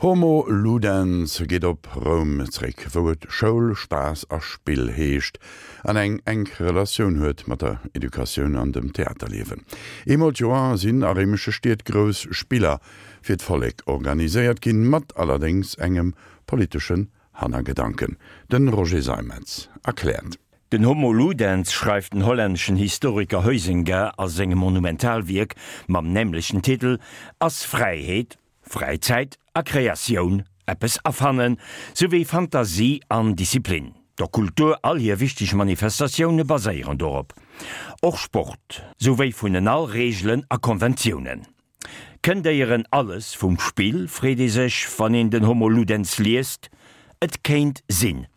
Homo Ludens geet op Roum zréck, wou et Schoul, Spaass a Spill heescht an eng enk Relatioun huet mat der Educatioun an dem Theaterliewen. Eemol d'Joer sinn a réimesche Stied grouss Spiller fir d'Vollek organiséiert ginn, mat allerdéngs engem politeschen Hannergedanken. De Roger Seimetz erkläert. Den Homo Ludens, schreift den hollänneschen Historiker Huizinga a sengem Monumentalwierk mam nämlechten Titel, ass Fräiheet, Fräizäit a Kreatioun, eppes erfannen, souwéi Fantasie an Disziplin. Der Kultur all hir wichteg Manifestatioune baséieren dorop. Och Sport, souwéi vun en all Reegelen a Konventiounen. Kënnt éieren alles vum Spill, freet ee sech, wann een den Homo Ludens liest. Et kéint sinn.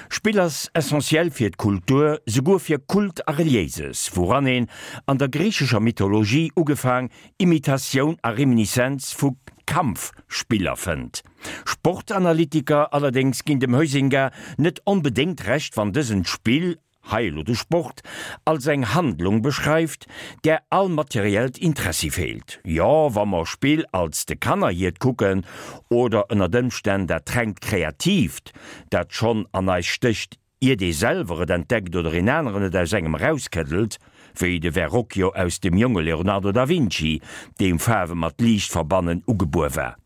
Spill ass essentiell fir d'Kultur, souguer fir Kult a Reliéises, wouran een an der griichescher Mythologie ugefaang Imitatioun a Reminiszenz vu Kampfspiller fënnt. Sportanalytiker allerdéngs ginn dem Huizinga net onbedéngt Recht, wann dësen d'Spill hei elo de Sport, als eng Handlung beschreift, där all materiellt Interessi feelt. Jo, wa mer Spill als de Kanner hiert kucken, oder ënnert Ëmstänn dat rengt Kreatiivt, dat schonn an eis stécht, iert ee selwer et entdeckt oder een aneren et aus engem erauskëddelt, wéi de Verrocchio aus dem jonge Leonardo da Vinci, deem Faarwe mat Liicht verbannen ugebuer war.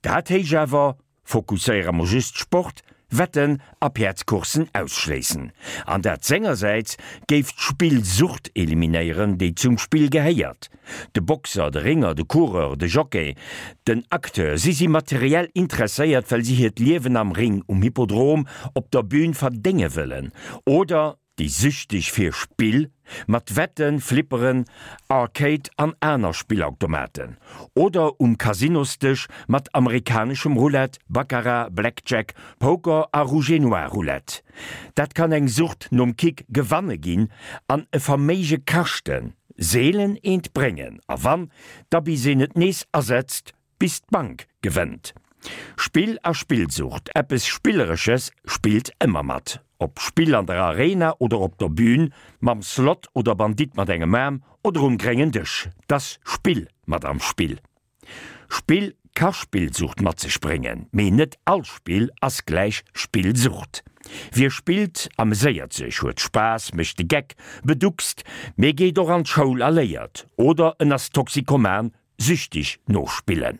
Dat héich awer Fokusséiere mer just Sport, Wetten a Päerdscoursen ausschléissen. An dat sengersäits géif d'Spillsucht eliminéieren, déi zum Spill gehéiert. De Boxer, de Ringer, de Coureur, de Jockey, den Acteur, si si materiell interesséiert, well si hiert Liewen am Ring, um Hippodrom, op der Bühn verdénge wëllen. Oder Déi süchteg fir Spill, mat Wetten, Flipperen, Arcade an aner Spillautomaten. Oder um Casinosdësch mat amerikaneschem Roulette, Baccarat, Blackjack, Poker a Rouge-et-Noir-Roulette. Dat kann eng Sucht nom Kick gewanne ginn an e Verméige kaschten, seelen eent bréngen a wann, da bis een et nees asetzt, Bis d'Bank gewënnt. Spill a Spillsucht, eppes Spilleresches spillt ëmmer mat. Ob Spill an der Arena oder op der Bühn, mam Slot oder Bandit mat engem Aarm oder um gréngen Dësch, t'ass Spill mat am Spill. Spill ka Spillsucht mat sech bréngen, mee net all Spill ass gläich Spillsucht. Wie spillt, ameséiert sech, huet Spaass, mécht de Geck, beduckst, mee geet och an d'Schoul a léiert. Oder en ass Toxikoman, Süchtig no Spillen.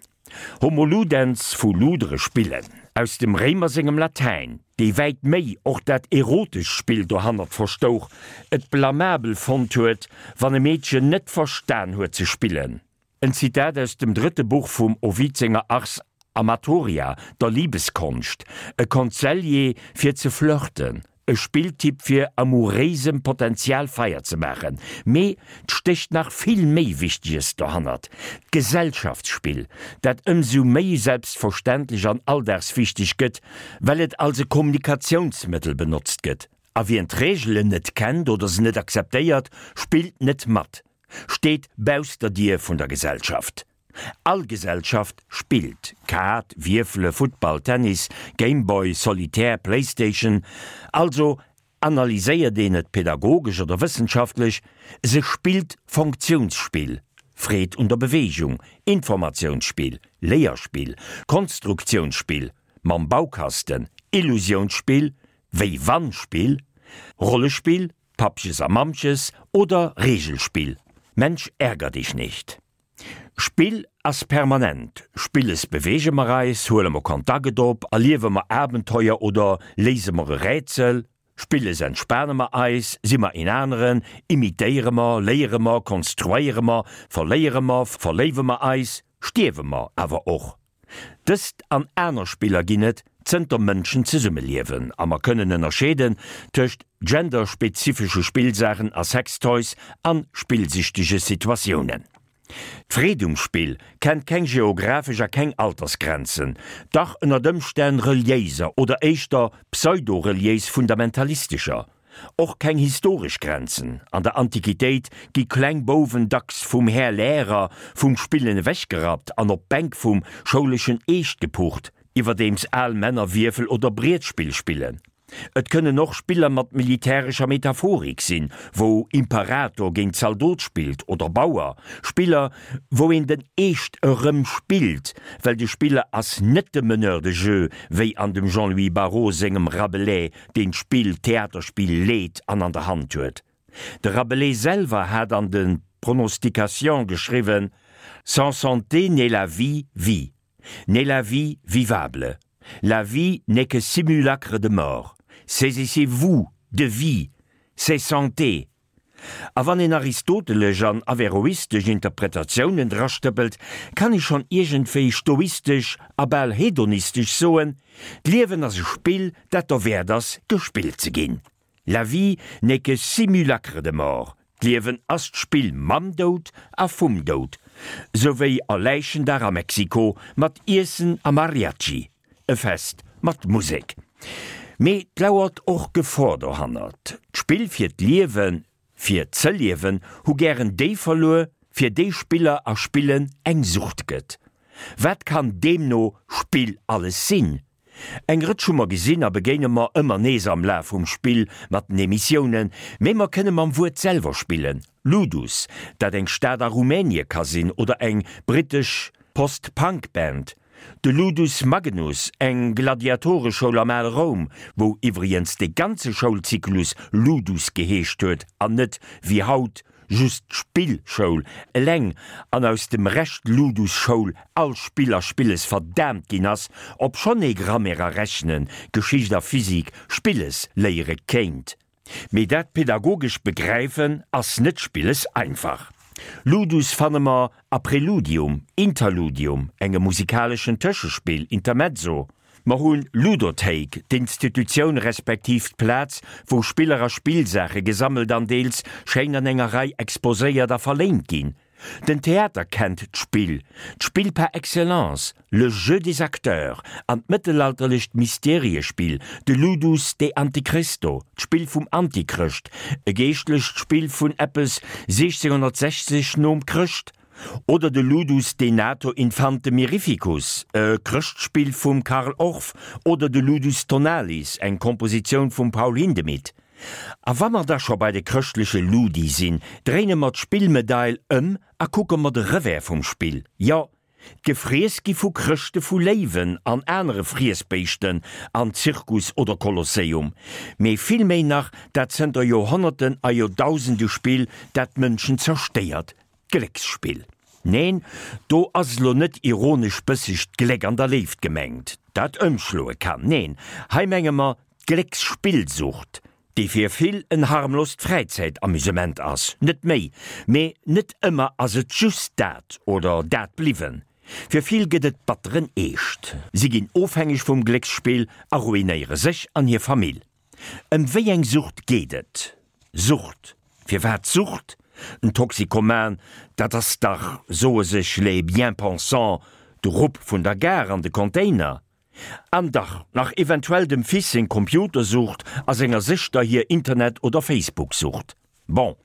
Homo ludens vu ludere spillen, aus dem Réimer sengem Latäin, dee wäit méi och dat erotescht Spill dohannert verstouch, et blamabel fonnt huet, wann e Meedchen net verstan huet ze spillen. En Zitat aus dem drëtte Buch vum Ovid senger Ars Amatoria, der Libeskonscht, e Konselljee fir ze flirten, e Spilltipp fir amouréisem Potenzial Feier ze maachen. Mee 't stécht nach vill méi Wichteges dohannert, d'Gesellschaftsspill, dat ëmsou méi selbstverständlech an alldagswichteg gëtt, well et als e Kommunikatiounsmëttel benotzt gëtt. A wien d'Reegelen net kennt oder se net akzeptéiert, spillt net mat, steet bausst der Dier vun der Gesellschaft. All Gesellschaft spillt, Kaart, Wierfele, Futtball, Tennis, Gameboy, Solitaire, Playstation. Also analyséiert een et pedagogesch oder wëssenschaftlech, se spillt Fonktiounsspill, Freed un der Beweegung, Informatiounsspill, Léierspill, Konstruktiounsspill, mam Baukasten, Illusiounsspill, Wéi-wann-Spill, Rollespill, Pappches a Mammches oder Reegelspill, Mensch ärger dich nicht. Spill ass permanent, Spilles beweege mer eis, huele mer Kontakt op, erliewe mer Abenteuer oder léise mer e Rätsel, Spilles entspane mer eis, si mer een aneren, imitéiere mer, léiere mer, konstruéiere mer, verléiere mer, verléiwe mer eis, stierwe mer awer och. Dëst an aner Spiller ginn et zënter Mënschen zesummeliewen a mer kënnen ënnerscheeden tëscht genderspezifesche Spillsaachen a Sextoys an spillsüchtege Situatiounen. D'Freed um Spill kennt keng geographesch a keng Altersgrenzen, dach ënnert Ëmstänn reliéiser oder éischter pseudo-reliéis fundamentalistescher. Och keng historesch Grenzen, an der Antiquitéit gi kleng Bouwen dacks vum Här Lärer vum Spillen ewechgerappt an op d'Bänk vum schouleschen Eescht gepucht, iwwerdeems al Männer Wierfel oder Brietspill spillen. Et kënnen och Spiller mat militärescher Metaphorik sinn, wou Imperator géint Zaldot spillt oder Bauer, Spiller, wou een den Eescht erëm spillt, well de Spiller ass net de Meneur de jeu, wéi an dem Jean-Louis Barrault sengem Rabelais, deen d'Spill, d'Theaterspill leet an an der Hand huet. De Rabelais selwer hat an de Pronostications geschriwwen, Sans santé n'est la vie vie. N'est la vie vivable. La vie n'est que simulacre de mort. Saisissez-vous de vie, c'est santé. A wann een aristotelesch an averroistesch Interpretatiounen drastëppelt, kann ee schonn iergendwéi stoistesch a bal hedonistesch soen, D'Liewen ass e Spill, dat derwäert ass, gespillt ze ginn. La vie n'est que simulacre de mort, d'Liewen ass d'Spill mam Doud a vum Doud, sou wéi a Läichendag a Mexiko mat Iessen a Mariachi, e Fest mat Musek. Mee 't lauert och Gefor dohannert. D'Spill fir d'Liewen, fir ze liewen, hu gären déi verluer, fir déi Spiller a Spillen eng Sucht gëtt. Wat kann deemno Spill alles sinn? Eng Rëtsch hu mer gesinn a begéine mer ëmmer nees am Laf vum Spill mat den Emissiounen, mee mer kënne mam Wuert selwer spillen, Ludus, dat eng Stad a Rumänie ka sinn oder eng brittesch Post-Punk-Band, de Ludus Magnus, eng Gladiatoreschoul am ale Roum, wou iwwregens de ganze Schoulzyklus Ludus geheescht huet an net, wéi haut, Just d'Spillschoul eleng an aus dem Rescht Ludus-Schoul all Spill a Spilles verdaamt ginn ass, obschonn ee Grammaire a Rechnen, Geschicht a Physik Spilles léiere kéint. Mee dat pedagogesch Begräifen ass net spilles einfach. Ludus fanne mer a Preludium, Interludium, engem musikaleschen Tëschespill, Intermezzo, Mer hunn Ludothéik, d'Institutioun respektiv d'Plaz, wou Spiller a Spillsaache gesammelt an deels schéin an enger Rei exposéiert a verléint ginn. Den Theater kennt d'Spill, d'Spill par excellence, le jeu des acteurs, an d'mëttelalterlecht Mysteriespill, de Ludus de Antichristo, d'Spill vum Antichrëscht, e geeschtlecht Spill vun eppes 1660 nom Chrëscht, Oder de Ludus Denato Infante Mirificus, e Chrëschtspill vum Carl Orff, oder de Ludus Tonalis, eng Kompositioun vum Paul Hindemith. A wa mer da scho bei de chrëschtleche Ludi sinn, dréine mer d'Spillmedail ëm a kucke mer de Revers vum Spill. Jo, d'Gefriess gi vu Chrëschte vu Léiwen an anere Friessbéischten an Zirkus oder Kolosseum, mee vill méi nach dat zënter Joerhonnerten a Joerdausende Spill, dat d'Mënschen zerstéiert, D'Glécksspill. Neen, do ass elo net ironesch bësseg d'Gléck an der Léift gemengt, dat ëmschloe kann. Neen, hei menge mer d'Glécksspillsucht, déi fir vill en harmlost Fräizäitamusement ass, net méi. Mee net ëmmer ass et just dat oder dat bliwwen. Fir vill gëtt et batteren Eescht. Si ginn ofhängeg vum Glécksspill a ruinéiere sech an hir Famill. Ëm wéi eng Sucht geet et? Sucht? Firwat Sucht? En Toxikoman, dat ass dach, soe sech les bien-pensants, de Rupp vun der Gare an de Container. An dach nach eventuell dem Fils seng Computersucht a senger Sëschter hir Internet oder Facebook-Sucht. Bon,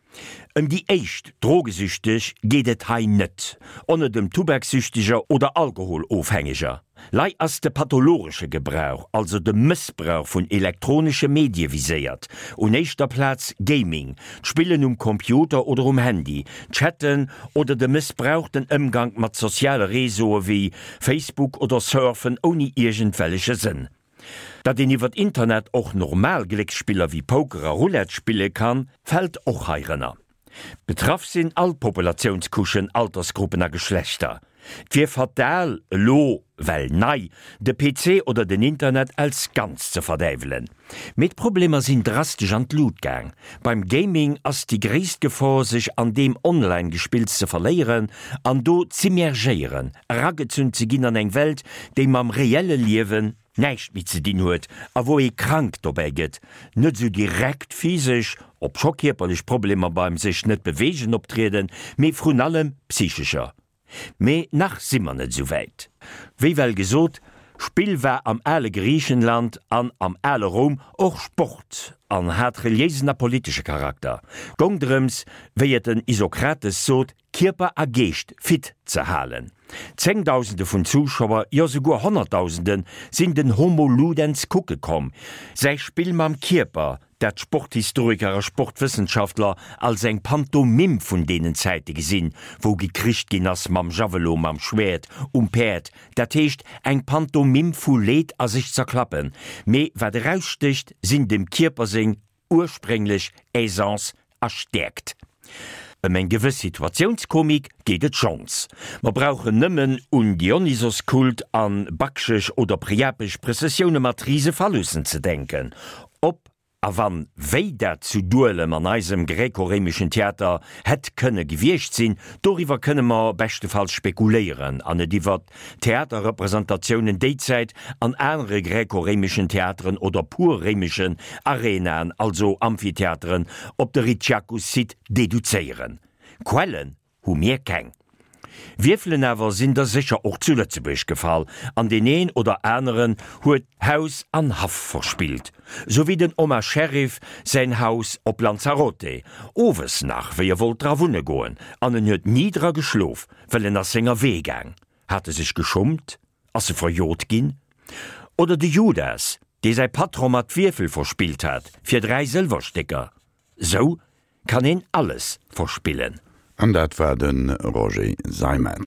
ëm déi éischt Drogesüchteg geet et hei net, och net ëm Tubaksüchteger oder Alkoholofhängeger. Lei ass de pathologesche Gebrauch, also de Mëssbrauch vun elektronesche Medie viséiert, un éischter Plaz Gaming, d'Spillen um Computer oder um Handy, Chatten oder de mëssbrauchten Ëmgank mat soziale Réseaue wéi Facebook oder Surfen ouni iergendwelleche Sënn. Datt een iwwert Internet och normal Glécksspiller wéi Poker a Roulette spille kann, fält och heirënner. Betraff sinn all Populatiounscouchen, Altersgruppen a Geschlechter. Et wier fatal, elo, well nei, de PC oder den Internet als Ganz ze verdäiwelen. Mee d'Problemer sinn drastesch an d'Lut gaang. Beim Gaming ass déi gréisst Gefor, sech an deem Online-Gespills ze verléieren an do z'immergéieren, eragezunn ze ginn an eng Welt, déi mam reelle Liewen näischt méi ze dinn huet a wou ee krank dobäi gëtt, net esou direkt physesch, obscho kierperlech Problemer beim sech net beweegen optrieden, mee vrun allem psychescher. Mee nach si mer net esou wäit. Wéi well gesot, Spill war am ale Griichenland an am ale Roum och Sport an hat reliéisen a politesche Charakter. Gong drëms, wéi et den Isokrates sot, Kierper a Geescht fit ze halen. Zéngdausende vun Zuschauer, jo souguer Honnertdausende sinn den Homo Ludens kucke komm. Säi Spill mam Kierper, dat d'Sporthistoriker a Sportwëssenschaftler als eng Pantomime vun deenen Zäite gesinn, wou gekricht ginn ass mam Javelot, mam Schwäert, um Päerd, dat heescht eng Pantomime vu Leed a sech zerklappen, mee wat erausstécht, sinn dem Kierper seng ursprénglech Aisance a Stäerkt. Ëm eng gewëss Situatiounskomik geet et schonns. Mer brauchen nëmmen un Dionysoskult an bakchesch oder priapesch Prëssessioune mat rise Phallussen ze denken. Ob a wann wéi dat zu Duelem an eisem gräkoréimeschen Theater hätt kënne gewiescht sinn, doriwwer kënne mer beschtefalls spekuléieren an et iwwer Theaterrepresentatiounen déizäit an anere gräko-réimeschen Theateren oder pur réimeschen Arenaen, also Amphitheateren, op de Ricciacus-Site deduzéieren. Quellen hu mir keng. Wierfelen awer sinn der sécher och zu Lëtzebuerg gefall, an deen een oder aneren huet Haus an Haff verspillt, sou wéi den Omar Sherif säin Haus op Lanzarote, owes nach, wéi e wollt dra wunne goen, an en huet ni dra geschlof, Well en ass senger Wee gaang. Hat e sech geschummt? Ass e verjot ginn? Oder de Judas, dee säi Patron mat Wierfel verspillt hat fir 3 Sëlwerstécker. Sou kann een alles verspillen. An dat war de Roger Seimetz.